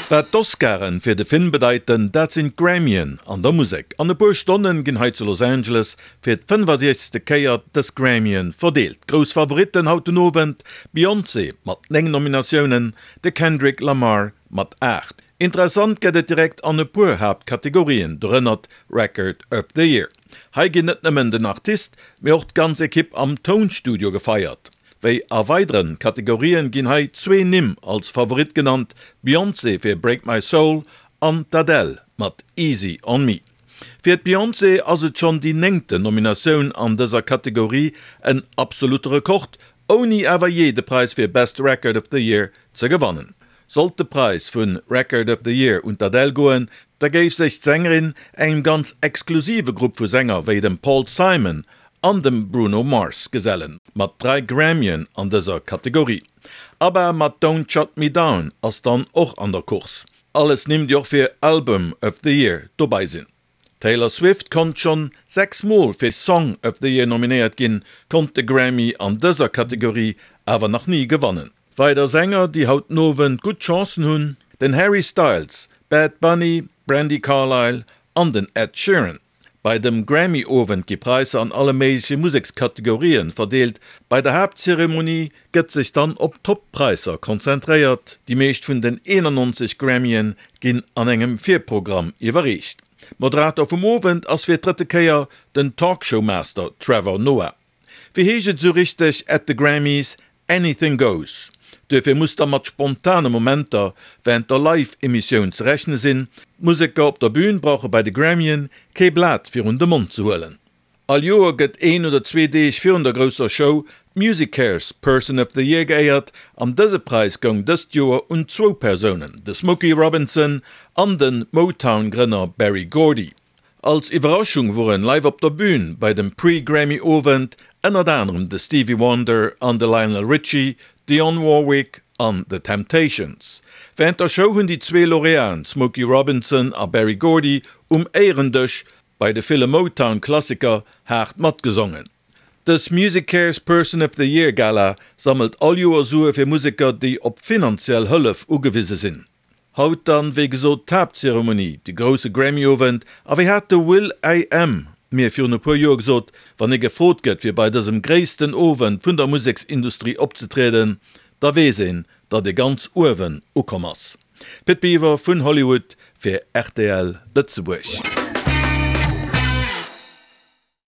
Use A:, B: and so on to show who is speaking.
A: Wat d'Oscaren fir de Film bedeiten, dat sinn d'Grammyen an der Musek. An e puer Stonnen ginn hei zu Los Angeles fir d' 65. Kéier dës Grammyen verdeelt. Grouss Favoritten haut den Owend, d'Beyoncé mat 9 Nominatiounen, de Kendrick Lamar mat 8. Interessant gëtt et direkt an e puer Haaptkategorien, dorënner d'Record of the Year. Hei ginn net nëmmen den Artist, mee och d'ganz Ekipp am Tounstudio gefeiert. Wéi a weideren Kategorien ginn hei zwee Nimm als Favorit genannt, d'Beyoncé fir Break My Soul an d'Adele mat Easy On Me. Fir d'Beyoncé ass et schonn déi néngten Nominatioun an dëser Kategorie, en absolutte Rekord, ouni awer jee de Präis fir Best Record of the Year ze gewannen. Sollt de Präis vu Record of the Year un d'Adele goen, da géif sech d'Sängerin engem ganz exklusive Grupp vu Sänger wéi dem Paul Simon an dem Bruno Mars gesellen, mat 3 Grammyen an dëser Kategorie. ABBA mat Don't Shut Me Down ass dann och an der Course. Alles Nimm déi och fir Album of the Year dobei sinn. D'Taylor Swift konnt schonn 6 Mol fir Song of the Year nominéiert ginn, konnt de Grammy an dëser Kategorie awer nach ni gewannen. Weider Sänger déi haut den Owend gutt Chancen hunn, den Harry Styles, Bad Bunny, Brandi Carlile an den Ed Sheeran. Bei dem Grammy-Owend gi Praisser an alle méigleche Musekskategorien verdeelt. Bei der Haaptzeremonie gëtt sech dann op d'Top-Praisser konzentréiert. Déi meescht vun den 91 Grammyen ginn an engem Virprogramm iwwerreecht. Moderator vum Owend ass fir d'drëtte Kéier den Talkshow-Master Trevor Noah. Wéi heescht et esou richteg at the Grammys, Anything goes. Duerfir muss da mat spontane Momenter wärend der Live-Emissioun ze rechne sinn. D'Museker op der Bün brauche bei de Grammyen kee Blat virun de Mond ze huelen. All Joer gëtt een oder zwee Deeg virun der grousser Show d'MusiCares Person of the Year geéiert an dëse Präis goung dëst Joer un zwou Persounen, de Smokey Robinson an de Motown-Grënner Berry Gordy. Als Iwwerraschung woren live op der Bühn bei dem Pre-Grammy Owend ënnert anerem de Stevie Wonder an de Lionel Richie, Dionne Warwick an The Temptations. Wärend der Show hunn déi zwee Lauréaten Smokey Robinson a Berry Gordy um Éierendësch bei de ville Motown-Klassiker haart matgesongen. Dës MusiCares Person of the Year Gala sammelt all Joer Sue fir Museker déi op finanziell Hëllef ugewise sinn. Haut dann, wéi gesot, d'Haaptzeremonie, de grousse Grammy-Owend. A wéi hat de Will I Am mir virun e puer Joer gesot, wann ee gefrot gëtt, fir bei dësem gréissten Owend vun der Museksindustrie opzetrieden, da weess een, datt ee ganz uewen ukomm ass. Pit Biwer vun Hollywood fir rtl Lëtzebuerg.